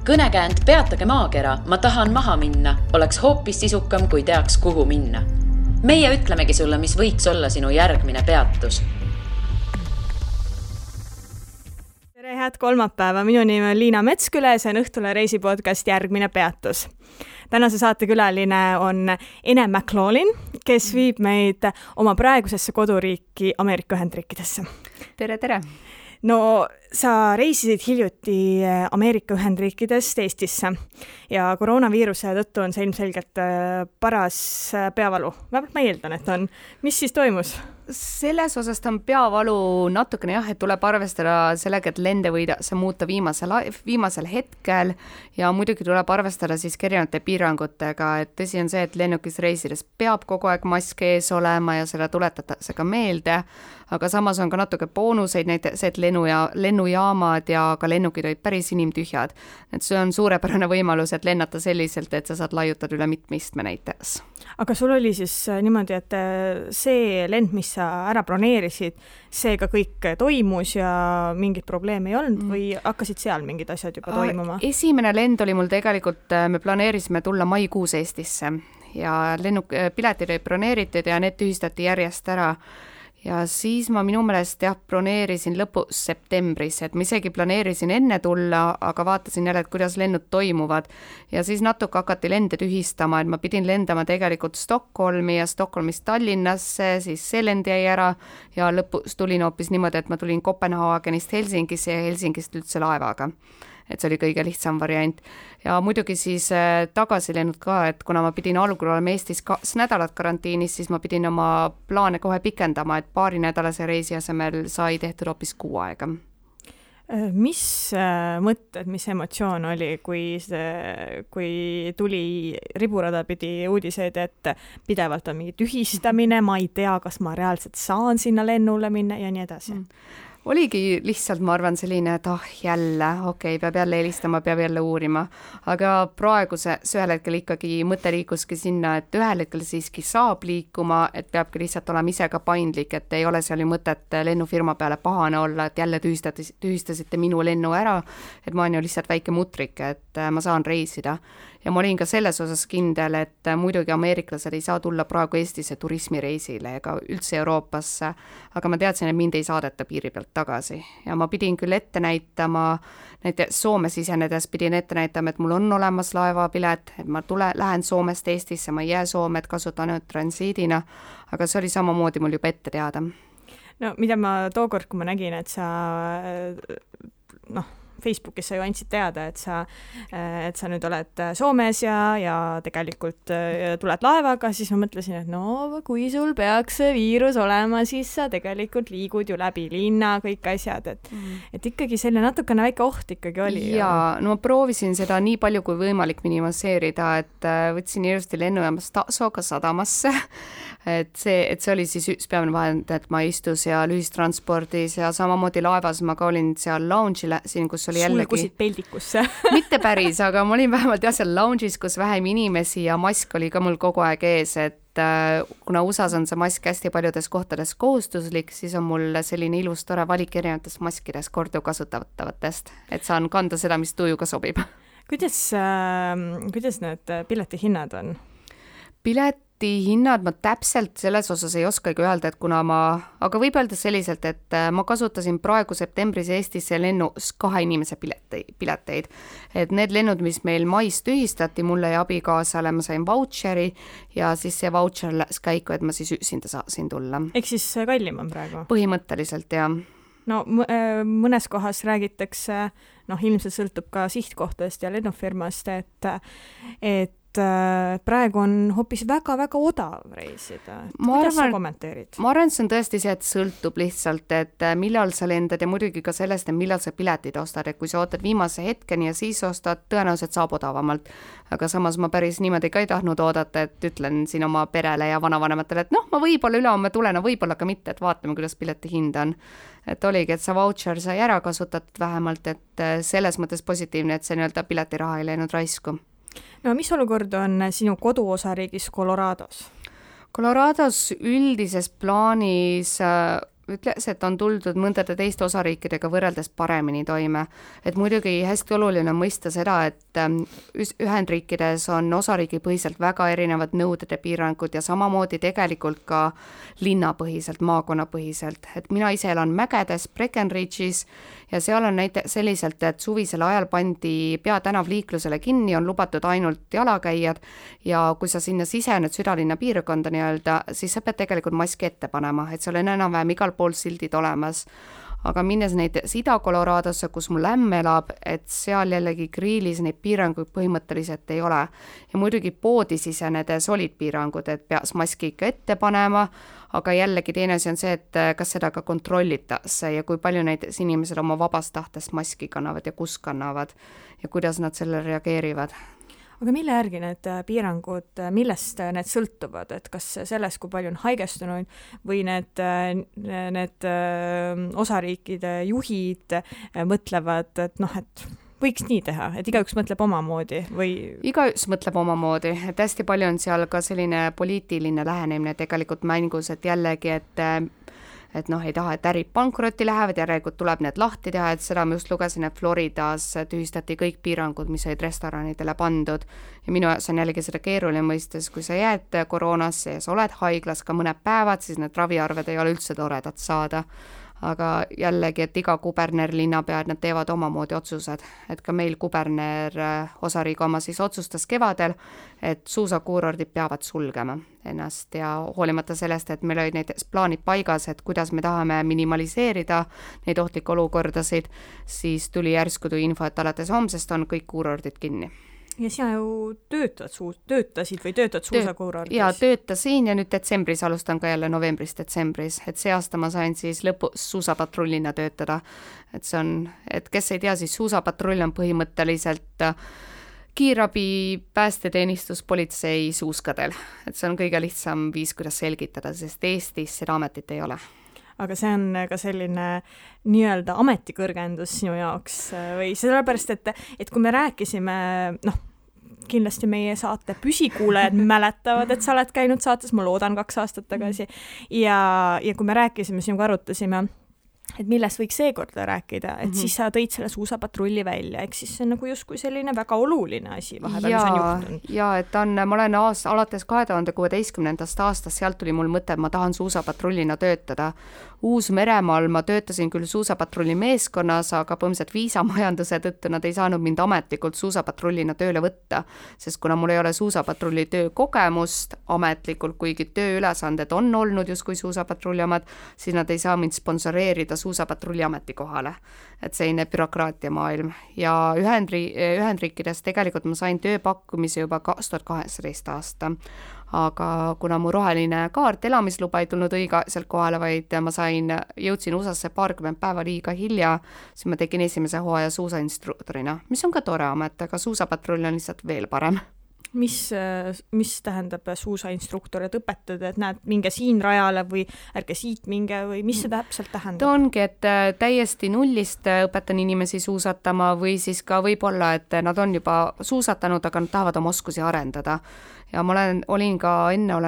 Kõnekäänd Peatage maakera, ma tahan maha minna, oleks hoopis sisukam, kui teaks, kuhu minna. Meie ütlemegi sulle, mis võiks olla sinu järgmine peatus. Tere, head kolmapäeva. Minu nimi on Liina Metsküle, see on Õhtule reisipodcast Järgmine peatus. Tänase saate külaline on Ene McLaughlin, kes viib meid oma praegusesse koduriiki Ameerika Ühendriikidesse. Tere, tere! No, sa reisisid hiljuti Ameerika Ühendriikidest Eestisse ja koroonaviiruse tõttu on see ilmselgelt paras peavalu. Vähemalt ma eeldan, et on. Mis siis toimus? Selles osas on peavalu natukene jah, et tuleb arvestada sellega, et lende võidakse muuta viimasel hetkel ja muidugi tuleb arvestada siis erinevate piirangutega, et tõsi on see, et lennukis reisides peab kogu aeg mask ees olema ja seda tuletatakse ka meelde, aga samas on ka natuke boonuseid, näiteks et lennujaamad ja ka lennukid olid päris inimtühjad. Et see on suurepärane võimalus, et lennata selliselt, et sa saad laiutada üle mitmistme näiteks. Aga sul oli siis niimoodi, et see lend, mis sa ära broneerisid, see ka kõik toimus ja mingit probleemi ei olnud või hakkasid seal mingid asjad juba toimuma? Esimene lend oli mul tegelikult, me planeerisime tulla maikuus Eestisse ja piletid olid broneeritud ja need tühistati järjest ära. Ja siis ma minu meelest broneerisin lõpus septembris, et ma isegi planeerisin enne tulla, aga vaatasin jälle, et kuidas lennud toimuvad. Ja siis natuke hakati lende tühistama, et ma pidin lendama tegelikult Stockholmi ja Stockholmist Tallinnasse, siis see lend jäi ära ja lõpus tulin hoopis niimoodi, et ma tulin Kopenhaagenist Helsingisse ja Helsingist üldse laevaga. Et see oli kõige lihtsam variant. Ja muidugi siis tagasi lennud ka, et kuna ma pidin algul olema Eestis 2 nädalat karantiinis, siis ma pidin oma plaane kohe pikendama, et 2 nädalase reisi asemel sai tehtud hoopis 6 aega. Mis mõtted, mis emotsioon oli, kui tuli riburada pidi uudiseid, et pidevalt on mingi tühistamine, ma ei tea, kas ma reaalselt saan sinna lennule minna ja nii edasi? Oligi lihtsalt, ma arvan, selline, et jälle, peab jälle helistama, peab jälle uurima. Aga praegu see ühel hetkel ikkagi mõte liikuski sinna, et ühel hetkel siiski saab liikuma, et peabki lihtsalt olema ise ka paindlik, et ei ole seal ju mõtet lennufirma peale pahane olla, et jälle tühistasite minu lennu ära, et ma olen ju lihtsalt väike mutrik, et ma saan reisida. Ja ma olin ka selles osas kindel, et muidugi ameeriklased ei saa tulla praegu Eestisse turismireisile ega üldse Euroopasse, aga ma teadsin, et mind ei saadeta piiri pealt tagasi. Ja ma pidin küll ette näitama, näiteks Soome sisenedes pidin ette näitama, et mul on olemas laevapilet, et ma lähen Soomest Eestisse, ma ei jää Soome, et kasutan ainult transiidina, aga see oli samamoodi mul juba ette teada. No mida ma tookord, kui ma nägin, et sa Facebookis sa ju andsid teada, et sa nüüd oled Soomes ja tegelikult tuled laevaga, siis ma mõtlesin, et kui sul peaks see viirus olema, siis sa tegelikult liigud ju läbi linna, kõik asjad, et ikkagi selline natukene väike oht ikkagi oli. Jaa, ma proovisin seda nii palju kui võimalik minimiseerida, et võtsin ilusti lennujaamast Tasoga sadamasse, et see oli siis üks peamine vahend, et ma istus seal ühistranspordis ja samamoodi laevas ma ka olin seal lounge'ile, kus oli jällegi... Sulgusid peldikusse. Mitte päris, aga ma olin vähemalt seal lounge'is, kus vähem inimesi ja mask oli ka mul kogu aeg ees, et kuna USAs on see mask hästi paljudes kohtades kohustuslik, siis on mul selline ilus tore valik erinevatest maskidest korduvkasutavatest, et saan kanda seda, mis tujuga sobib. Kuidas need piletihinnad on? Piletihinnad ma täpselt selles osas ei oskagi öelda, et kuna aga võib öelda selliselt, et ma kasutasin praegu septembris Eestisse lennus 2 inimese pileteid. Et need lennud, mis meil mais tühistati, mulle ja abikaasale ma sain vautšeri ja siis see vautšer läks käiku, et ma siis üksinda saasin tulla. Ehk siis kallim on praegu? Põhimõtteliselt, jah. No mõnes kohas räägitakse, ilmselt sõltub ka sihtkohtadest ja lennufirmast, et praegu on hoopis väga-väga odav reisida. Kuidas sa kommenteerid? Ma arvan, see on tõesti see, et sõltub lihtsalt, et millal sa lendad ja muidugi ka sellest, et millal sa piletid ostad, et kui sa ootad viimase hetkeni ja siis ostad, tõenäoliselt saab odavamalt. Aga samas ma päris niimoodi ka ei tahtnud oodata, et ütlen siin oma perele ja vanavanematele, et ma võib-olla ülehomme tulen, võib-olla ka mitte, et vaatame, kuidas pileti hind on. Et oligi, et sa vautšer sai ära kasutatud vähemalt, et selles mõttes positiivne, et see nii-öelda piletiraha ei läinud raisku. No mis olukord on sinu koduosariigis Colorados? Colorados üldises plaanis ütles, et on tuldud mõndade teiste osariikidega võrreldes paremini toime. Et muidugi hästi oluline on mõista seda, et Ühendriikides on osariigipõhiselt väga erinevad nõuded ja piirangud ja samamoodi tegelikult ka linnapõhiselt, maakonnapõhiselt. Et mina ise elan mägedes Breckenridge'is ja seal on näiteks selliselt, et suvisel ajal pandi peatänav liiklusele kinni, on lubatud ainult jalakäijad ja kui sa sinna sisened südalinna piirkonda nii-öelda, siis sa pead tegelikult maski ette panema, et seal on enam-vähem igal pool sildid olemas. Aga minnes näiteks Ida-Coloradosse, kus mul ämm elab, et seal jällegi grillis neid piiranguid põhimõtteliselt ei ole. Ja muidugi poodi sisenedes olid piirangud, et peaks maski ikka ette panema, aga jällegi teine asi on see, et kas seda ka kontrollitakse ja kui palju näiteks inimesed oma vabast tahtest maski kannavad ja kus kannavad ja kuidas nad sellele reageerivad. Aga mille järgi need piirangud, millest need sõltuvad, et kas sellest, kui palju on haigestunuid või need osariikide juhid mõtlevad, et et võiks nii teha, et igaüks mõtleb omamoodi või? Igaüks mõtleb omamoodi, et hästi palju on seal ka selline poliitiline lähenemine tegelikult mängus, et jällegi, et ei taha, et ärid pankrotti lähevad, järelikult tuleb need lahti teha, et seda ma just lugesin, et Floridas tühistati kõik piirangud, mis olid restoranidele pandud ja minu jaoks on jällegi seda keeruline mõistes, kui sa jääd koroonasse ja sa oled haiglas ka mõned päevad, siis need raviarved ei ole üldse toredad saada. Aga jällegi, et iga kuberner, linnapea, nad teevad omamoodi otsused, et ka meil kuberner osariigi oma siis otsustas kevadel, et suusakuurordid peavad sulgema ennast ja hoolimata sellest, et meil olid näiteks plaanid paigas, et kuidas me tahame minimaliseerida neid ohtlikke olukordasid, siis tuli järsku info, et alates homsest on kõik kuurordid kinni. Ja sina ju töötasid või töötad suusakuurordis? Ja töötasin ja nüüd detsembris alustan ka jälle novembris-detsembris, et see aasta ma sain siis lõpus suusapatrullina töötada. Et see on, et kes ei tea, siis suusapatrull on põhimõtteliselt kiirabi, päästeteenistus, politsei suuskadel. Et see on kõige lihtsam viis, kuidas selgitada, sest Eestis seda ametit ei ole. Aga see on ka selline nii-öelda ametikõrgendus sinu jaoks või sellepärast, et kui me rääkisime, kindlasti meie saate püsikuulajad mäletavad, et sa oled käinud saates, ma loodan 2 aastat tagasi ja kui me rääkisime, sinuga arutasime, et millest võiks seekord rääkida, et siis sa tõid selle suusapatrulli välja, eks siis see on nagu justkui selline väga oluline asi vahepeal, mis on juhtunud. Ja et ma olen alates 2016. aastast, sealt tuli mul mõte, et ma tahan suusapatrullina töötada. Uus-Meremaal ma töötasin küll suusapatrulli meeskonnas, aga põhimõtteliselt viisamajanduse tõttu nad ei saanud mind ametlikult suusapatrullina tööle võtta, sest kuna mul ei ole suusapatrulli töökogemust ametlikult, kuigi tööülesanded on olnud justkui suusapatrulli omad, siis nad ei saa mind sponsoreerida suusapatrulli ametikohale. Et selline bürokraatia maailm. Ja Ühendriikides tegelikult ma sain tööpakkumise juba 2018 aasta. Aga kuna mu roheline kaart elamisluba ei tulnud õigeaegselt kohale, vaid ma jõudsin USA-sse 20 päeva liiga hilja, siis ma tegin esimese hooaja suusainstruktorina, mis on ka tore amet, aga suusapatrull on lihtsalt veel parem. Mis tähendab suusainstruktor, et õpetad, et näed, minge siin rajale või ärge siit minge või mis see täpselt tähendab? Ta ongi, et täiesti nullist õpetan inimesi suusatama või siis ka võib-olla, et nad on juba suusatanud, aga nad tahavad oma oskusi arendada. Ja ma olin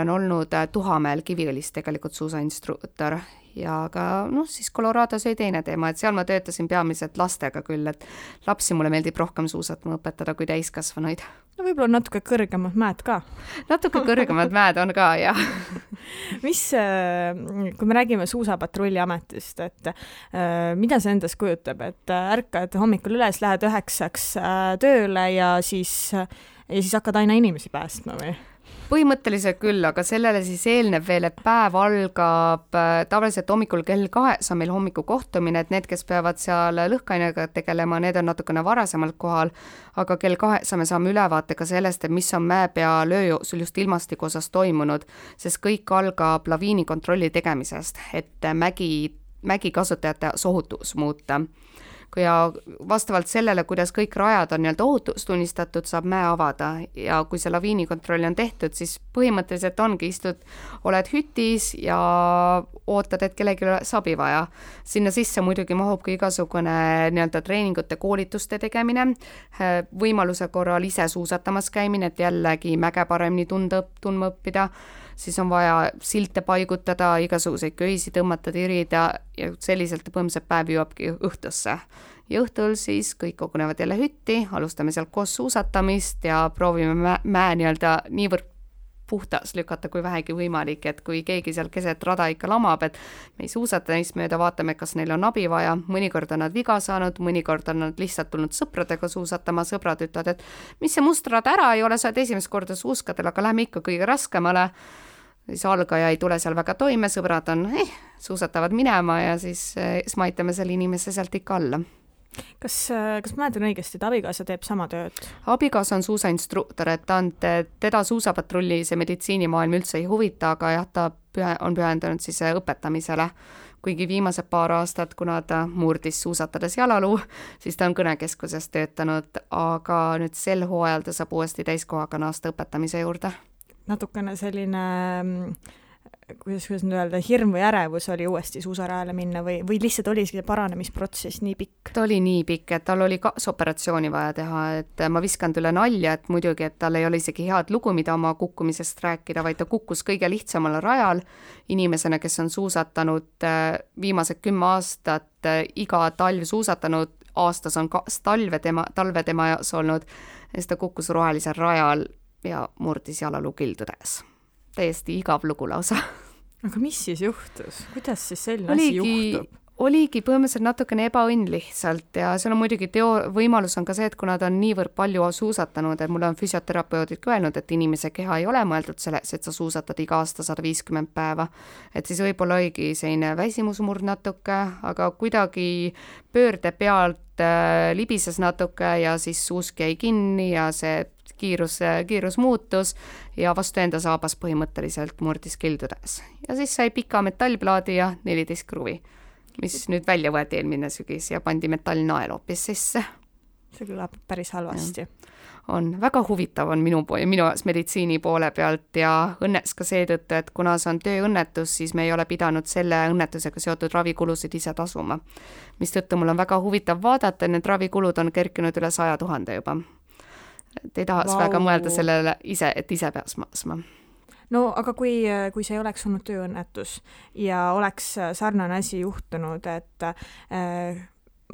olnud Tuhamäel Kiviõlis tegelikult suusainstruktor ja ka siis Colorados oli teine teema, et seal ma töötasin peamiselt lastega küll, et lapsi mulle meeldib rohkem suusatama õpetada kui täiskasvanuid. No võib-olla natuke kõrgemad mäed ka. Natuke kõrgemad mäed on ka, jah. Kui me räägime suusapatrulli ametist, et mida see endas kujutab, et ärkad hommikul üles, lähed 9 tööle ja siis hakkad aina inimesi päästma või? Põhimõtteliselt küll, aga sellele siis eelneb veel, et päev algab tavaliselt hommikul kell 2 on meil hommikukohtumine, et need, kes peavad seal lõhkainega tegelema, need on natukene varasemalt kohal, aga kell 2 me saame ülevaate ka sellest, et mis on mäepeal öö jooksul just ilmastiku osas toimunud, sest kõik algab laviinikontrolli tegemisest, et mägi kasutajate ohutus muuta. Ja vastavalt sellele, kuidas kõik rajad on ohutus tunnistatud, saab mäe avada ja kui see laviinikontroll on tehtud, siis põhimõtteliselt ongi oled hütis ja ootad, et kellegi abi vaja. Sinna sisse muidugi mahub ka igasugune treeningute koolituste tegemine, võimaluse korral ise suusatamas käimine, et jällegi mäge paremini tundma õppida. siis on vaja silte paigutada, igasuguseid köisi tõmmata, tirida ja selliselt põhimõtteliselt päev jõuabki õhtusse. Ja õhtul siis kõik kogunevad jälle hütti, alustame sealt koos suusatamist ja proovime mäe nii-öelda niivõrd puhtas lükata kui vähegi võimalik, et kui keegi seal keset rada ikka lamab, et me ei suusata neist mööda, vaatame, kas neil on abi vaja, mõnikord on nad viga saanud, mõnikord on nad lihtsalt tulnud sõpradega suusatama, sõbrad ütlevad, et mis see must rada ära ei ole, sa oled esimest korda suuskadel, aga lähme ikka kõige raskemale. Siis algaja ei tule seal väga toime, sõbrad on, suusatavad minema ja siis me aitame selle inimese sealt ikka alla. Kas mäletan õigesti, et abikaasa teeb sama tööd? Abikaasa on suusainstruktor, et teda suusapatrulli see meditsiinimaailm üldse ei huvita, aga jah, ta on pühendanud siis õpetamisele. Kuigi viimased paar aastat, kuna ta murdis suusatades jalaluu, siis ta on kõnekeskuses töötanud, aga nüüd sel hooajal ta saab uuesti täiskohaga naasta õpetamise juurde. Natukene selline kuidas nüüd öelda, hirm või ärevus oli uuesti suusarajale minna või lihtsalt oli see paranemisprotsess nii pikk? Ta oli nii pikk, et tal oli kaasoperatsiooni vaja teha, et ma viskan üle nalja, et muidugi, et tal ei ole isegi head lugu, mida oma kukkumisest rääkida, vaid ta kukkus kõige lihtsamal rajal inimesena, kes on suusatanud viimased 10 aastat iga talv suusatanud, aastas on talve tema jaos olnud, ja siis ta kukkus rohelisel rajal ja murdis jalaluu kildudes. Täiesti igav lugu lausa. Aga mis siis juhtus? Kuidas siis selline asi juhtub? Oligi põhimõtteliselt natukene ebaõnn lihtsalt ja seal on muidugi võimalus on ka see, et kuna ta on niivõrd palju suusatanud, et mulle on füsioterapeudid öelnud, et inimese keha ei ole mõeldud selleks, et sa suusatad iga aasta 150 päeva. Et siis võib-olla oligi selline väsimusmurd natuke, aga kuidagi pöörde pealt libises natuke ja siis suusk jäi kinni ja see kiirus muutus ja vastu enda saabas põhimõtteliselt murdis kildudes. Ja siis sai pika metallplaadi ja 14 kruvi, mis nüüd välja võeti eelmine sügis ja pandi metallnael hoopis sisse. See kõlab päris halvasti. On väga huvitav on minu meditsiini poole pealt ja õnneks ka seetõttu, et kuna see on tööõnnetus, siis me ei ole pidanud selle õnnetusega seotud ravikulusid ise tasuma. Mistõttu mul on väga huvitav vaadata, need ravikulud on kerkinud üle 100 000 juba. Et ei tahaks väga mõelda sellele ise, et ise peaks maksma. No aga kui see ei oleks olnud tööõnnetus ja oleks sarnane asi juhtunud, et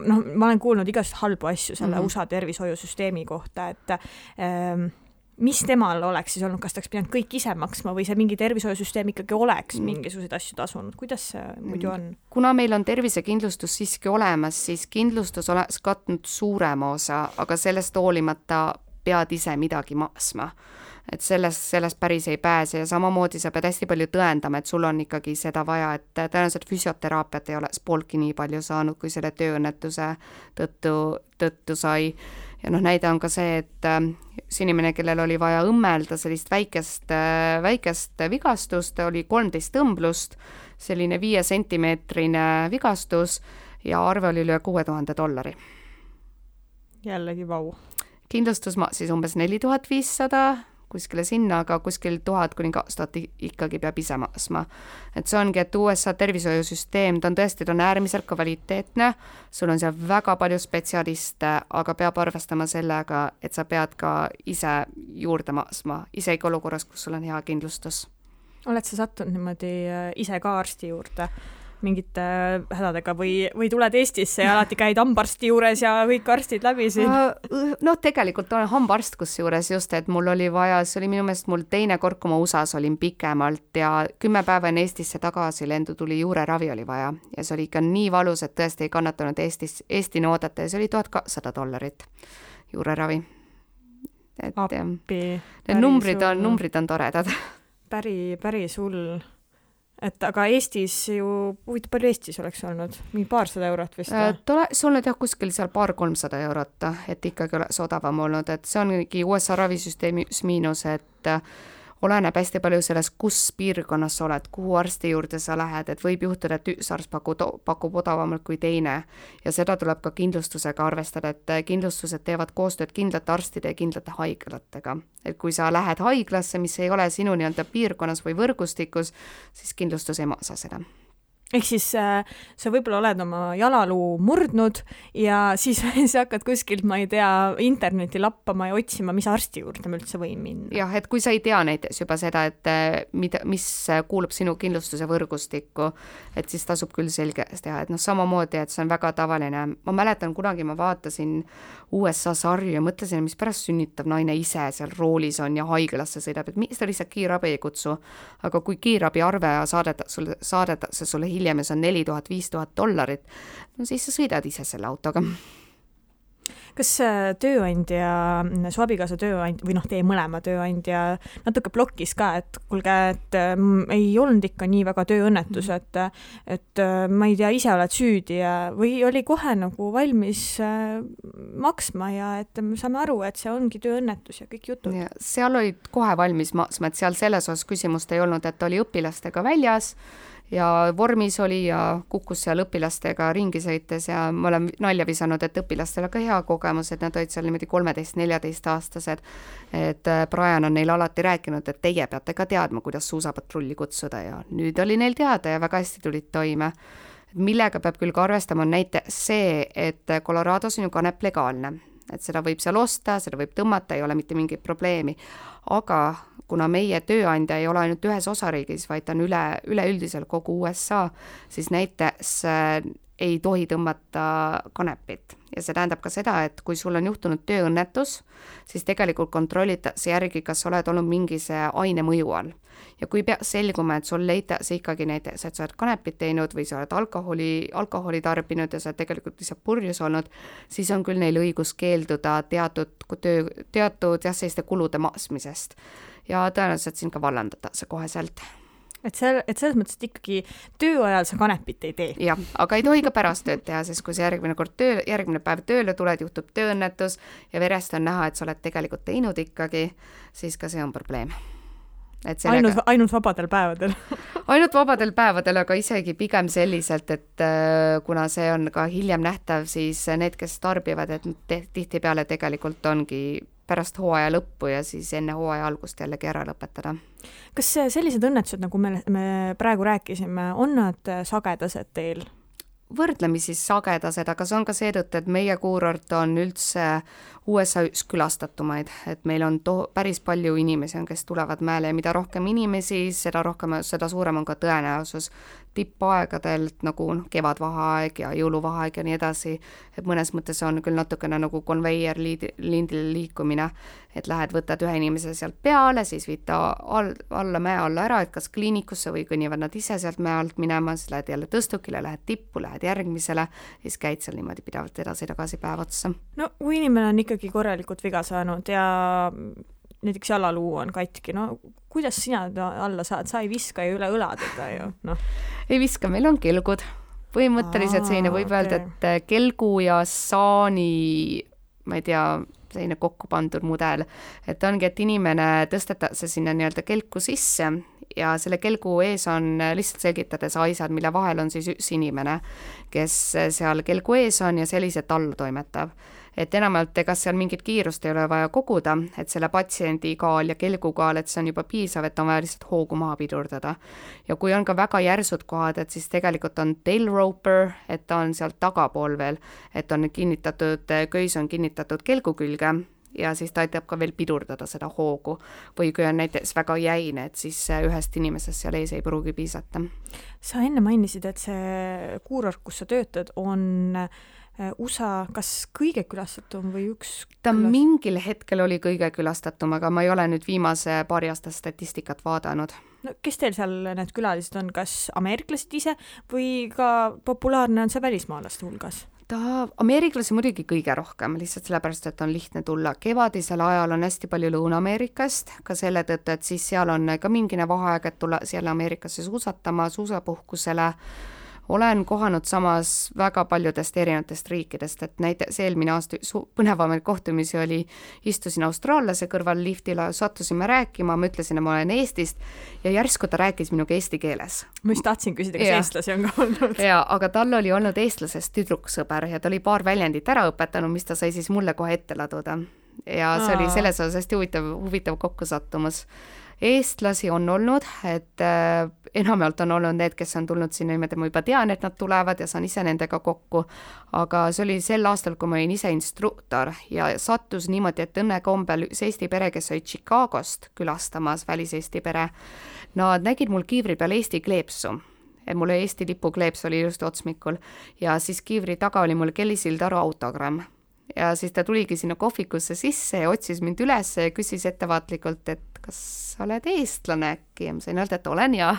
ma olen kuulnud igast halbu asju selle USA tervishoiusüsteemi kohta, et mis temal oleks siis olnud, kas ta oleks pidanud kõik ise maksma või see mingi tervishoiusüsteem ikkagi oleks mingisuguseid asju tasunud? Kuidas see muidu on? Kuna meil on tervisekindlustus siiski olemas, siis kindlustus oleks katnud suurema osa, aga sellest hoolimata pead ise midagi maksma. Et sellest päris ei pääse ja samamoodi sa pead hästi palju tõendama, et sul on ikkagi seda vaja, et tõenäoliselt füsioteraapiat ei oleks pooltki nii palju saanud, kui selle tööõnnetuse tõttu sai. Ja näide on ka see, et see inimene, kellel oli vaja õmmelda sellist väikest vigastust, oli 13 tõmblust, selline 5 sentimeetrine vigastus ja arve oli üle $6000. Jällegi vau. Kindlustus maksis umbes 4500 kuskile sinna, aga kuskil 1000 kuni 2000 ikkagi peab ise maksma. Et see ongi, et USA tervishoiusüsteem, ta on äärmiselt kvaliteetne, sul on seal väga palju spetsialiste, aga peab arvestama sellega, et sa pead ka ise juurde maksma, isegi olukorras, kus sul on hea kindlustus. Oled sa sattunud niimoodi ise ka arsti juurde mingite hädadega või tuled Eestisse ja alati käid hambarsti juures ja kõik arstid läbi siin? No tegelikult olen hambarst kusjuures just, et mul oli vaja, see oli minu meelest mul teine kord, kui ma USAs olin pikemalt ja 10 päeva enne Eestisse tagasi lendu tuli juureravi oli vaja ja see oli ikka nii valus, et tõesti ei kannatanud Eestini oodata ja see oli $1200 juureravi. Et appi, numbrid on toredad. Päris hull. Et aga Eestis ju, palju Eestis oleks olnud? Mingi $200 vist? Oleks olnud jah kuskil seal $200-300, et ikkagi oleks odavam olnud, et see ongi USA ravisüsteemis miinus, et oleneb hästi palju sellest, kus piirkonnas sa oled, kuhu arsti juurde sa lähed, et võib juhtuda, et üks arst pakub odavamalt kui teine ja seda tuleb ka kindlustusega arvestada, et kindlustused teevad koostööd kindlate arstide ja kindlate haiglatega. Et kui sa lähed haiglasse, mis ei ole sinu nii-öelda piirkonnas või võrgustikus, siis kindlustus ei maksa seda. ehk siis sa võib-olla oled oma jalaluu murdnud ja siis sa hakkad kuskilt, ma ei tea, interneti lappama ja otsima, mis arsti juurde ma üldse võin minna. Jah, et kui sa ei tea näiteks juba seda, et mis kuulub sinu kindlustuse võrgustikku, et siis tasub küll selgeks teha, et samamoodi, et see on väga tavaline. Ma mäletan, kunagi ma vaatasin USA sarju ja mõtlesin, mis pärast sünnitav naine ise seal roolis on ja haiglasse sõidab, et miks ta lihtsalt kiirabi ei kutsu. Aga kui kiirabi arve saadetakse sulle hiljem ja see on $4000–5000, no siis sa sõidad ise selle autoga. Kas tööandja, su abikaasa tööandja või teie mõlema tööandja natuke blokkis ka, et kuulge, et ei olnud ikka nii väga tööõnnetus, et ma ei tea, ise oled süüdi ja, või oli kohe nagu valmis maksma ja et me saame aru, et see ongi tööõnnetus ja kõik jutud? Ja, seal olid kohe valmis maksma, et seal selles osas küsimust ei olnud, et oli õpilastega väljas ja vormis oli ja kukkus seal õpilastega ringi sõites ja ma olen nalja visanud, et õpilastel ka hea kogemus, et nad olid seal niimoodi 13–14 aastased, et Brian on neil alati rääkinud, et teie peate ka teadma, kuidas suusapatrulli kutsuda ja nüüd oli neil teada ja väga hästi tulid toime. Millega peab küll ka arvestama on näiteks see, et Colorados on ju kanep legaalne, et seda võib seal osta, seda võib tõmmata, ei ole mitte mingit probleemi, aga kuna meie tööandja ei ole ainult ühes osariigis, vaid ta on üleüldisel kogu USA, siis näiteks ei tohi tõmmata kanepit. Ja see tähendab ka seda, et kui sul on juhtunud tööõnnetus, siis tegelikult kontrollitakse järgi, kas oled olnud mingise aine mõju all. Ja kui peaks selguma, et sul leitakse ikkagi näiteks, et sa oled kanepit teinud või sa oled alkoholi tarbinud ja sa oled tegelikult lihtsalt purjus olnud, siis on küll neil õigus keelduda teatud selliste kulude maksmisest. Ja tõenäoliselt siin ka vallandatakse koheselt. Et selles mõttes, et ikkagi tööajal sa kanepit ei tee. Jah, aga ei tohi ka pärast tööd teha, sest kui sa järgmine päev tööle tuled, juhtub tööõnnetus ja verest on näha, et sa oled tegelikult teinud ikkagi, siis ka see on probleem. Ainult vabadel päevadel. Ainult vabadel päevadel, aga isegi pigem selliselt, et kuna see on ka hiljem nähtav, siis need, kes tarbivad, et tihtipeale tegelikult ongi pärast hooaja lõppu ja siis enne hooaja algust jällegi ära lõpetada. Kas sellised õnnetused, nagu me praegu rääkisime, on nad sagedased teil? Võrdlemisi sagedased, aga see on ka seetõttu, et meie kuurort on üldse USA üks külastatumaid, et meil on päris palju inimesi, kes tulevad mäele ja mida rohkem inimesi, seda suurem on ka tõenäosus tippaegadelt nagu kevadvaheaeg ja jõuluvaheaeg ja nii edasi, et mõnes mõttes on küll natukene nagu konveier lindil liikumine, et lähed, võtad ühe inimese sealt peale, siis viid ta alla mäe alla ära, et kas kliinikusse või kõnnivad nad ise sealt mäe alt minema, siis lähed jälle tõstukile, lähed tippu, lähed järgmisele, siis käid seal niimoodi pidavalt edasi-tagasi päev otsa. No kui inimene on ikkagi korralikult viga saanud ja näiteks jalaluu on katki, no kuidas sina alla saad, sa ei viska ju üle õla teda ju, noh. Ei viska, meil on kelgud. Põhimõtteliselt selline võib öelda, et kelgu ja saani, ma ei tea, selline kokku pandud mudel, et ongi, et inimene tõstetakse sinna nii-öelda kelku sisse ja selle kelgu ees on lihtsalt selgitades aisad, mille vahel on siis üks inimene, kes seal kelgu ees on ja selliselt alla toimetab. Et enamalt ega seal mingit kiirust ei ole vaja koguda, et selle patsiendi kaal ja kelgu kaal, et see on juba piisav, et on vaja lihtsalt hoogu maha pidurdada. Ja kui on ka väga järsud kohad, et siis tegelikult on tail roper, et ta on sealt tagapool veel, et on kinnitatud, köis on kinnitatud kelgu külge ja siis ta aitab ka veel pidurdada seda hoogu. Või kui on näiteks väga jäine, et siis ühest inimesest seal ees ei pruugi piisata. Sa enne mainisid, et see kuurort, kus sa töötad, on USA kas kõige külastatum või üks? Ta mingil hetkel oli kõige külastatum, aga ma ei ole nüüd viimase paari aasta statistikat vaadanud. No, kes teil seal need külalised on, kas ameeriklased ise või ka populaarne on see välismaalaste hulgas? Ameeriklasi muidugi kõige rohkem, lihtsalt sellepärast, et on lihtne tulla. Kevadisel ajal on hästi palju Lõuna-Ameerikast, ka selle tõttu, et siis seal on ka mingine vaheaeg, et tulla siellä Ameerikasse suusatama, suusapuhkusele. Olen kohanud samas väga paljudest erinevatest riikidest, et näiteks eelmine aasta põnevamaid kohtumisi oli, istusin austraallase kõrval liftile, sattusime rääkima, ma ütlesin, et ma olen Eestist ja järsku ta rääkis minuga eesti keeles. Ma just tahtsin küsida, kas eestlasi on ka olnud. Ja, aga tal oli olnud eestlasest tüdruksõber ja ta oli paar väljendit ära õpetanud, mis ta sai siis mulle kohe ette laduda. Ja see oli selles osas hästi huvitav kokkusattumus. eestlasi on olnud, et enamjaolt on olnud need, kes on tulnud sinna niimoodi, ma juba tean, et nad tulevad ja saan ise nendega kokku, aga see oli sel aastal, kui ma olin ise instruktor ja sattus niimoodi, et õnnekombel üks Eesti pere, kes oli Chicagost külastamas, väliseesti pere, nad nägid mul kiivri peal Eesti kleepsu. Mul Eesti lipu kleeps oli just otsmikul ja siis kiivri taga oli mul Kelly Sildaru autogramm. Ja siis ta tuligi sinna kohvikusse sisse ja otsis mind üles ja küsis ettevaatlikult, et kas sa oled eestlane äkki? Ja ma sain öelda, et olen ja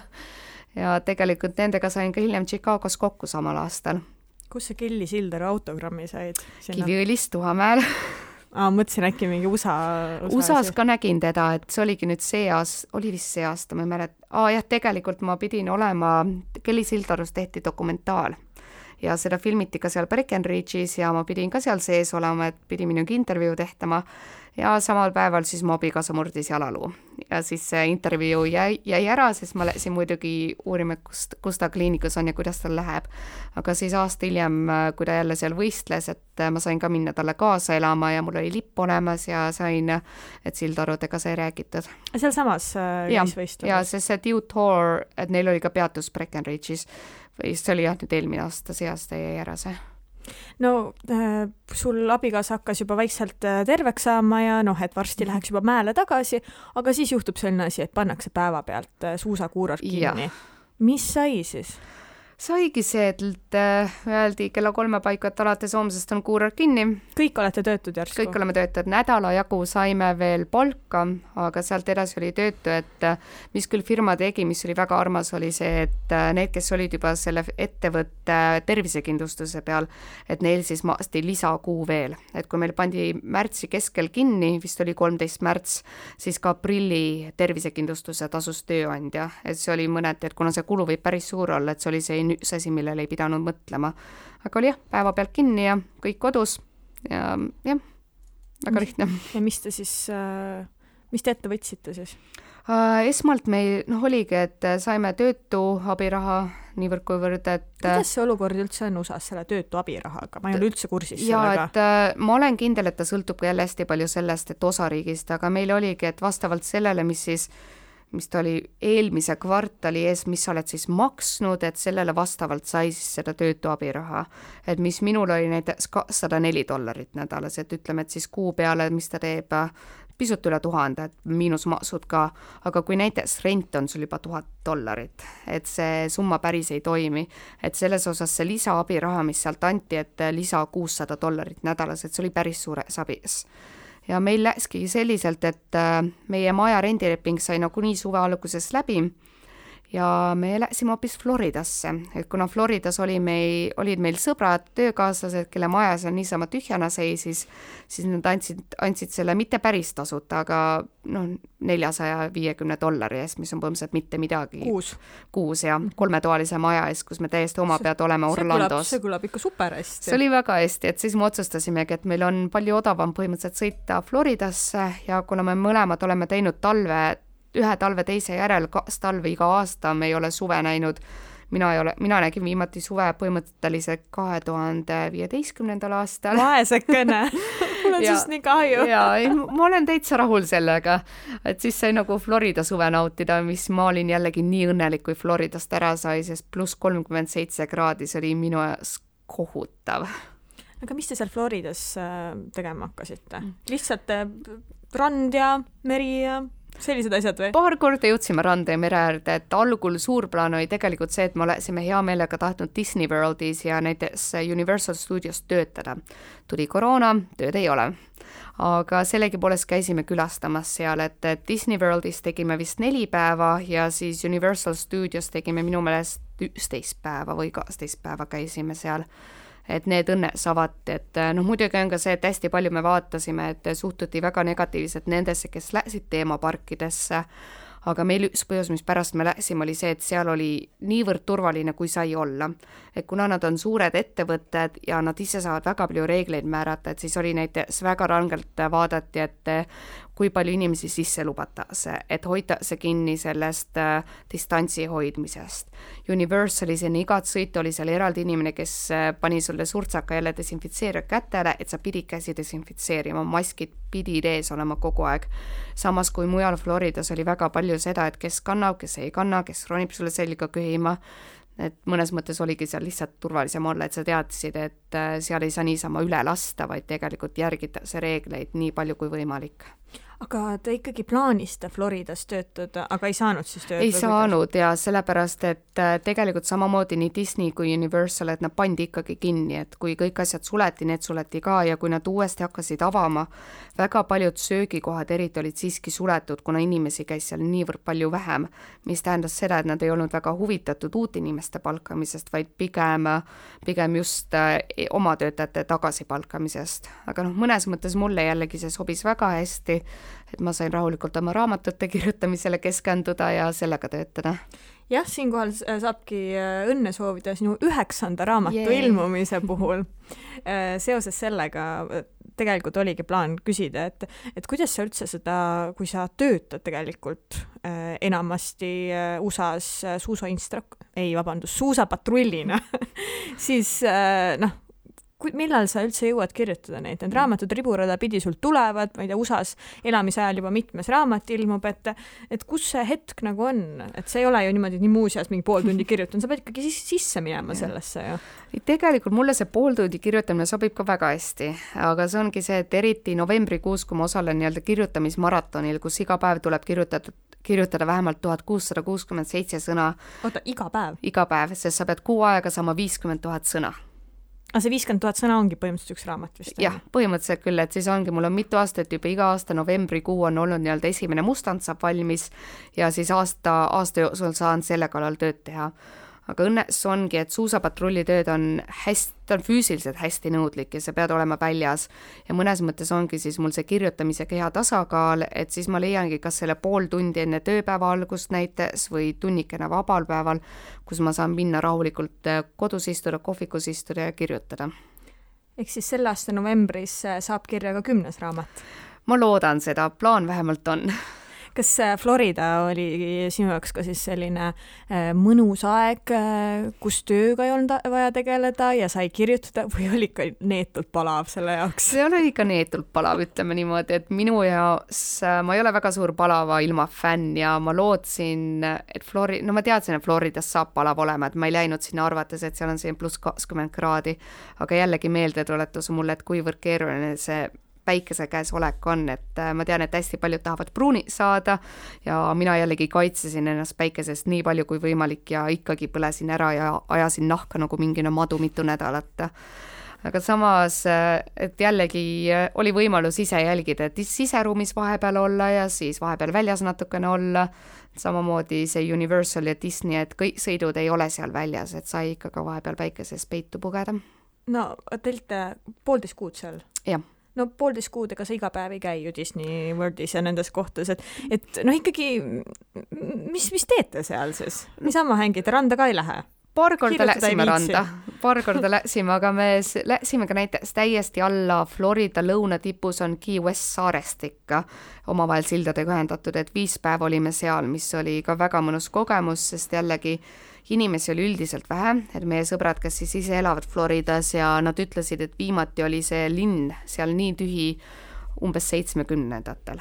tegelikult nendega sain ka hiljem Chicagos kokku samal aastal. Kus sa Kelly Sildaru autogrammi said? Kiviõlis Tuhamäel. Mõtlesin äkki mingi USA-s ka nägin teda, et see oligi nüüd oli vist see aasta, ma ei mäleta. Jah, tegelikult ma pidin olema, Kelly Sildarust tehti dokumentaal. Ja seda filmiti ka seal Breckenridge'is ja ma pidin ka seal sees olema, et pidi minugi intervjuu tehtama ja samal päeval siis mu abikaasa murdis jalaluu. Ja siis see intervjuu jäi ära, sest ma läksin muidugi uurima, kus ta kliinikus on ja kuidas tal läheb. Aga siis aasta hiljem, kui ta jälle seal võistles, et ma sain ka minna talle kaasa elama ja mul oli lipp olemas ja sain, et Sildarudega sai räägitud. Seal samas võistluses? Ja see Dew Tour, et neil oli ka peatus Breckenridge'is. See oli nüüd eelmine aasta, see aasta jäi ära see. No sul abikaasa hakkas juba vaikselt terveks saama ja et varsti läheks juba mäele tagasi, aga siis juhtub selline asi, et pannakse päeva pealt suusakuuror kinni. Ja. Mis sai siis? Saigi see, et öeldi kella 3 paiku, et alates homsest on kuuror kinni. Kõik olete töötud järsku? Kõik oleme töötud. Nädala jagu saime veel palka, aga sealt edasi oli töötu, et mis küll firma tegi, mis oli väga armas, oli see, et need, kes olid juba selle ettevõtte tervisekindlustuse peal, et neil siis maasti lisakuu veel. Et kui meil pandi märtsi keskel kinni, vist oli 13 märts, siis ka aprilli tervisekindlustuse tasus tööandja. Et see oli mõneti, et kuna see kulu võib päris suur olla, et see oli see üks asi, millele ei pidanud mõtlema. Aga oli päeva pealt kinni ja kõik kodus ja väga lihtne. Ja mis te ette võtsite siis? Esmalt meil oligi, et saime töötu abiraha niivõrd kuivõrd, et... Kuidas see olukord üldse on USA-s selle töötu abirahaga? Ma ei ole üldse kursis sellega. Ja, et ma olen kindel, et ta sõltub ka jälle hästi palju sellest, et osariigist, aga meil oligi, et vastavalt sellele, mis ta oli eelmise kvartali ees, mis sa oled siis maksnud, et sellele vastavalt sai siis seda töötu abiraha. Et mis minul oli näiteks $104 nädalas, et ütleme, et siis kuu peale, mis ta teeb pisut üle 1000, et miinusmaksud ka, aga kui näiteks rent on sul juba $1000, et see summa päris ei toimi, et selles osas see lisaabiraha, mis sealt anti, et lisa $600 nädalas, et see oli päris suures abis. Ja meil läkski selliselt, et meie maja rendileping sai nagu nii suve alguses läbi ja me läksime hoopis Floridasse, et kuna Floridas olid meil sõbrad, töökaaslased, kelle maja seal niisama tühjana seisis, siis nad andsid selle mitte päris tasuta, aga $450 eest, mis on põhimõtteliselt mitte midagi. Kuus ja 3-toalise maja eest, kus me täiesti oma pead oleme Orlandos. See kõlab ikka super hästi. See oli väga hästi, et siis me otsustasimegi, et meil on palju odavam põhimõtteliselt sõita Floridasse ja kuna me mõlemad oleme teinud ühe talve teise järel, 2 talve iga aasta, me ei ole suve näinud. Mina nägin viimati suve põhimõtteliselt 2015. aastal. Vaesekene. Mul on siis nii kahju. Ma olen täitsa rahul sellega, et siis sai nagu Florida suve nautida, mis ma olin jällegi nii õnnelik, kui Floridast ära sai, sest plus 37 kraadi, see oli minu jaoks kohutav. Aga mis te seal Floridas tegema hakkasite? Lihtsalt rand ja meri ja... Sellised asjad või? Paar korda jõudsime randa ja mere äärde, et algul suur plaan oli tegelikult see, et me olesime hea meelega tahtnud Disney Worldis ja näiteks Universal Studios töötada. Tuli koroona, tööd ei ole. Aga sellegipoolest käisime külastamas seal, et Disney Worldis tegime vist 4 päeva ja siis Universal Studios tegime minu meelest 11 päeva või 12 päeva käisime seal. Et need õnnes avati, et muidugi on ka see, et hästi palju me vaatasime, et suhtuti väga negatiivselt nendesse, kes läksid teemaparkidesse, aga meil üks põhjus, mis pärast me läksime, oli see, et seal oli niivõrd turvaline, kui sai olla. Et kuna nad on suured ettevõtted ja nad ise saavad väga palju reegleid määrata, et siis oli näiteks väga rangelt vaadati, et kui palju inimesi sisse lubatakse, et hoitakse kinni sellest distantsi hoidmisest. Universalis enne igat sõitu oli seal eraldi inimene, kes pani sulle surtsaka jälle desinfitseerija kätele, et sa pidid käsi desinfitseerima, maskid pidid ees olema kogu aeg. Samas kui mujal Floridas oli väga palju seda, et kes kannab, kes ei kanna, kes ronib sulle selga köhima, et mõnes mõttes oligi seal lihtsalt turvalisem olla, et sa teadsid, et seal ei saa niisama üle lasta, vaid tegelikult järgitakse reegleid nii palju kui võimalik. Aga te ikkagi plaanisite Floridas töötada, aga ei saanud siis töötada? Ei saanud ja sellepärast, et tegelikult samamoodi nii Disney kui Universal, et nad pandi ikkagi kinni, et kui kõik asjad suleti, need suleti ka ja kui nad uuesti hakkasid avama, väga paljud söögikohad eriti olid siiski suletud, kuna inimesi käis seal niivõrd palju vähem, mis tähendas seda, et nad ei olnud väga huvitatud uut inimeste palkamisest, vaid pigem just oma töötajate tagasipalkamisest. Aga mõnes mõttes mulle jällegi see sobis väga hästi, et ma sain rahulikult oma raamatute kirjutamisele keskenduda ja sellega töötada. Jah, siinkohal saabki õnne soovida sinu 9. raamatu ilmumise puhul. Seoses sellega tegelikult oligi plaan küsida, et kuidas sa üldse seda, kui sa töötad tegelikult enamasti USA-s suusapatrullina, siis millal sa üldse jõuad kirjutada neid? Need raamatud riburada pidi sul tulevad, ma ei tea, USA-s elamisajal juba mitmes raamat ilmub, et kus see hetk nagu on? Et see ei ole ju niimoodi nii muuseas mingi pool tundi kirjutan, sa pead ikkagi sisse minema sellesse ju. Tegelikult mulle see pool tundi kirjutamine sobib ka väga hästi, aga see ongi see, et eriti novembrikuus, kui ma osalen nii-öelda kirjutamismaratonil, kus iga päev tuleb kirjutada vähemalt 1667 sõna. Oota, iga päev? Iga päev, sest sa pead kuu aega saama 50 000 sõna. Aga see 50 000 sõna ongi põhimõtteliselt üks raamat vist? Jah, põhimõtteliselt küll, et siis ongi, mul on mitu aastat juba iga aasta novembrikuu on olnud nii-öelda esimene mustand saab valmis ja siis aasta jooksul saan selle kallal tööd teha. Aga õnnes ongi, et suusapatrullitööd on füüsiliselt hästi nõudlik ja sa pead olema väljas ja mõnes mõttes ongi siis mul see kirjutamisega hea tasakaal, et siis ma leiangi kas selle pool tundi enne tööpäeva algust näites või tunnikene vabal päeval, kus ma saan minna rahulikult kodus istuda, kohvikus istuda ja kirjutada. Ehk siis selle aasta novembris saab kirja ka 10. raamat? Ma loodan seda, plaan vähemalt on. Kas Florida oli sinu jaoks ka siis selline mõnus aeg, kus tööga ei olnud vaja tegeleda ja sai kirjutada või oli ikka neetult palav selle jaoks? See oli ikka neetult palav, ütleme niimoodi, et minu jaoks ma ei ole väga suur palava ilma fänn ja ma lootsin, et ma teadsin, et Floridas saab palav olema, et ma ei läinud sinna arvates, et seal on siin pluss 20 kraadi, aga jällegi meeldetuletus mulle, et kuivõrd keeruline see päikese käes olek on, et ma tean, et hästi paljud tahavad pruuni saada ja mina jällegi kaitsesin ennast päikesest nii palju kui võimalik ja ikkagi põlesin ära ja ajasin nahka nagu mingine madu mitu nädalat. Aga samas, et jällegi oli võimalus ise jälgida, et siseruumis vahepeal olla ja siis vahepeal väljas natukene olla, samamoodi see Universal ja Disney, et kõik sõidud ei ole seal väljas, et sai ikka ka vahepeal päikeses peitu pugeda. No, teilt 1,5 kuud seal? Jah. No 1,5 kuud, ega sa iga päev ei käi ju Disney Worldis ja nendes kohtades, et ikkagi, mis teete seal siis? Niisama hängite, randa ka ei lähe? Paar korda läksime, aga me läksime ka näiteks täiesti alla Florida lõunatipus on Key West saarest ikka omavahel sildadega ühendatud, et 5 päeva olime seal, mis oli ka väga mõnus kogemus, sest jällegi inimesi oli üldiselt vähe, et meie sõbrad, kes siis ise elavad Floridas ja nad ütlesid, et viimati oli see linn seal nii tühi umbes 70-ndatel.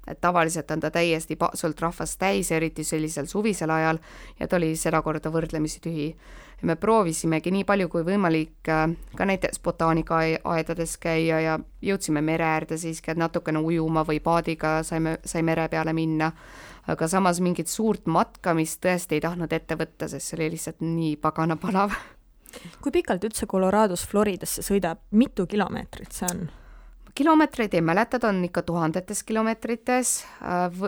Et tavaliselt on ta täiesti paksult rahvast täis, eriti sellisel suvisel ajal ja ta oli seda korda võrdlemisi tühi. Ja me proovisimegi nii palju kui võimalik ka näiteks botaanikaaedades käia ja jõudsime mere äärde siiski, et natukene ujuma või paadiga sai mere peale minna. Aga samas mingit suurt matkamist tõesti ei tahtnud ette võtta, sest see oli lihtsalt nii pagana palav. Kui pikalt üldse Colorados Floridasse sõidab, mitu kilomeetrit see on? Kilomeetreid ei mäleta, on ikka 1000 kilomeetrites.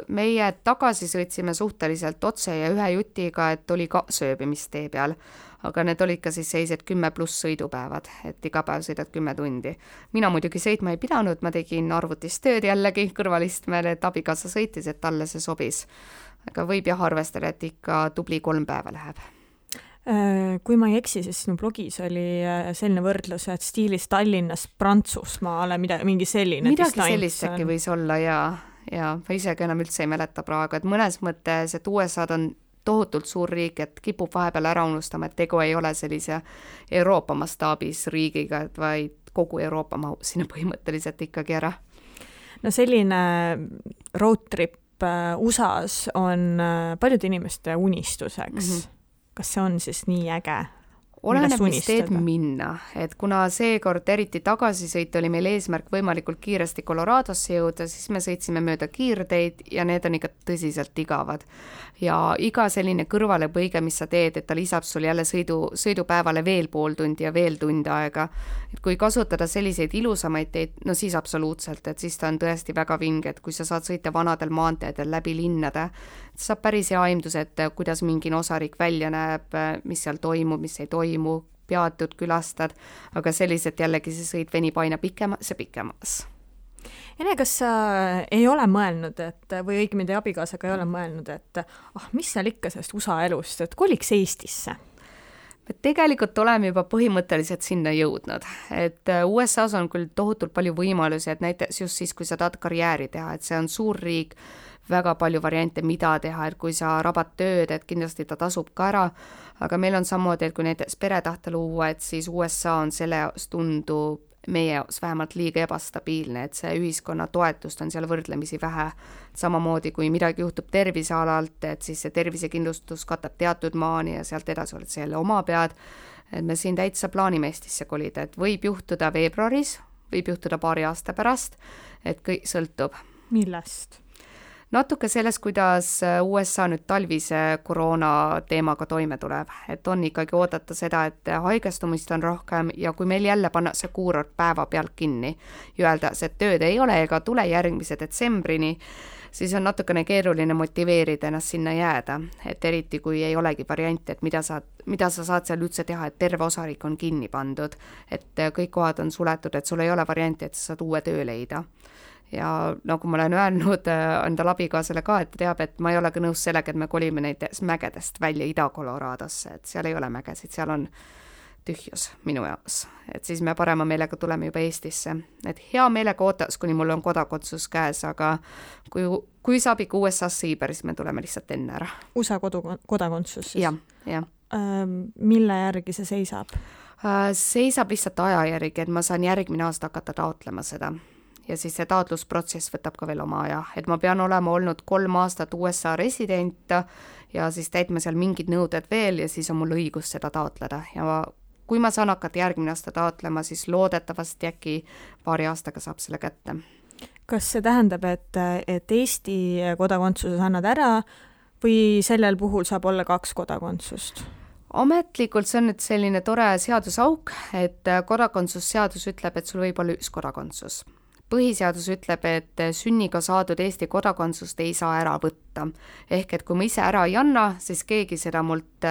Meie tagasi sõitsime suhteliselt otse ja ühe jutiga, et oli ka sööbimistee peal. Aga need olid ka siis seised 10+ sõidupäevad, et iga päev sõidad 10 tundi. Mina muidugi sõitma ei pidanud, ma tegin arvutis tööd jällegi kõrvalistmel, et abikaasa sõitis, et talle see sobis. Aga võib jah arvestada, et ikka tubli 3 päeva läheb. Kui ma ei eksi, siis sinu blogis oli selline võrdlus, et stiilis Tallinnas Prantsusmaale mingi selline midagi sellist äkki võis olla, jaa. ja ma isegi enam üldse ei mäleta praegu, et mõnes mõttes, et USA-d on tohutult suur riik, et kipub vahepeal ära unustama, et tegu ei ole sellise Euroopa mastaabis riigiga, vaid kogu Euroopa mahub sinna põhimõtteliselt ikkagi ära. No selline road trip USA-s on paljude inimeste unistuseks. Kas see on siis nii äge? Oleneb, mis teed minna, et kuna seekord eriti tagasisõit oli meil eesmärk võimalikult kiiresti Coloradosse jõuda, siis me sõitsime mööda kiirteid ja need on ikka tõsiselt igavad. Ja iga selline kõrvalepõige, mis sa teed, et ta lisab sul jälle sõidupäevale veel pool tundi ja veel tund aega. Et kui kasutada selliseid ilusamaid teid, no siis absoluutselt, et siis ta on tõesti väga vinge, et kui sa saad sõita vanadel maanteedel läbi linnade, saab päris hea aimdus, et kuidas mingi osariik välja näeb, mis seal toimub, mis ei toimu, peatud, külastad, aga selliselt jällegi see sõit venib aina pikemas ja pikemas. Ene, kas sa ei ole mõelnud, et, või õigemini teie abikaasaga ei ole mõelnud, et mis seal ikka sellest USA elust, et koliks Eestisse? Me tegelikult oleme juba põhimõtteliselt sinna jõudnud, et USA-s on küll tohutult palju võimalusi, et näiteks just siis, kui sa tahad karjääri teha, et see on suur riik, väga palju variante, mida teha, et kui sa rabad tööd, et kindlasti ta tasub ka ära, aga meil on samamoodi, et kui näiteks pere tahta luua, et siis USA on selle jaoks tundub meie jaoks vähemalt liiga ebastabiilne, et see ühiskonna toetust on seal võrdlemisi vähe. Samamoodi, kui midagi juhtub tervisealalt, et siis see tervisekindlustus katab teatud maani ja sealt edasi oled selle oma pead. Et me siin täitsa plaanime Eestisse kolida, et võib juhtuda veebruaris, võib juhtuda paari aasta pärast, et kõik sõltub. Millest? Natuke sellest, kuidas USA nüüd talvise koroona teemaga toime tuleb, et on ikkagi oodata seda, et haigestumist on rohkem ja kui meil jälle panna see kuurort päeva pealt kinni ja öelda, et tööd ei ole ega tule järgmise detsembrini, siis on natukene keeruline motiveerida ennast sinna jääda, et eriti kui ei olegi varianti, et mida sa saad seal üldse teha, et terve osariik on kinni pandud, et kõik kohad on suletud, et sul ei ole varianti, et sa saad uue töö leida. Ja nagu ma olen öelnud enda abikaasale ka, et teab, et ma ei ole ka nõus sellega, et me kolime näiteks mägedest välja Ida-Coloradosse, et seal ei ole mägesid, seal on tühjus minu jaoks. Et siis me parema meelega tuleme juba Eestisse. Et hea meelega ootaks, kuni mul on kodakondsus käes, aga kui saab ikka USA-sse Iiber, siis me tuleme lihtsalt enne ära. USA kodakondsus siis? Jah. Mille järgi see seisab? Seisab lihtsalt aja järgi, et ma saan järgmine aasta hakata taotlema seda. Ja siis see taotlusprotsess võtab ka veel oma aja, et ma pean olema olnud 3 aastat USA resident ja siis täitma seal mingid nõuded veel ja siis on mul õigus seda taotleda ja kui ma saan hakata järgmine aasta taotlema, siis loodetavasti äkki paari aastaga saab selle kätte. Kas see tähendab, et Eesti kodakondsuses annad ära või sellel puhul saab olla 2 kodakondsust? Ametlikult see on nüüd selline tore seadusauk, et kodakondsusseadus ütleb, et sul võib olla 1 kodakondsus. Põhiseadus ütleb, et sünniga saadud Eesti kodakondsust ei saa ära võtta. Ehk et kui ma ise ära ei anna, siis keegi seda mult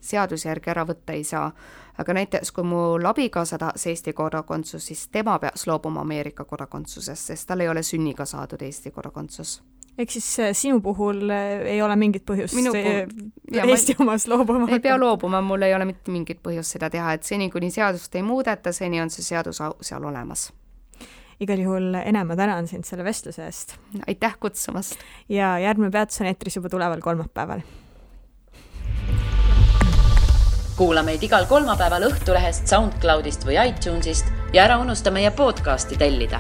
seaduse järgi ära võtta ei saa. Aga näiteks kui mul abikaasa tahas Eesti kodakondsus, siis tema peaks loobuma Ameerika kodakondsusest, sest tal ei ole sünniga saadud Eesti kodakondsus. Ehk siis sinu puhul ei ole mingit põhjust Eesti omast loobuma? Ei pea loobuma, mul ei ole mitte mingit põhjust seda teha, et seni kuni seadust ei muudeta, seni on see seadus seal olemas. Igal juhul Ene, ma tänan sind selle vestluse eest. Aitäh kutsumast. Ja järgmine peatus on eetris juba tuleval kolmapäeval. Kuula meid igal kolmapäeval Õhtulehest, SoundCloudist või iTunesist ja ära unusta meie podcasti tellida.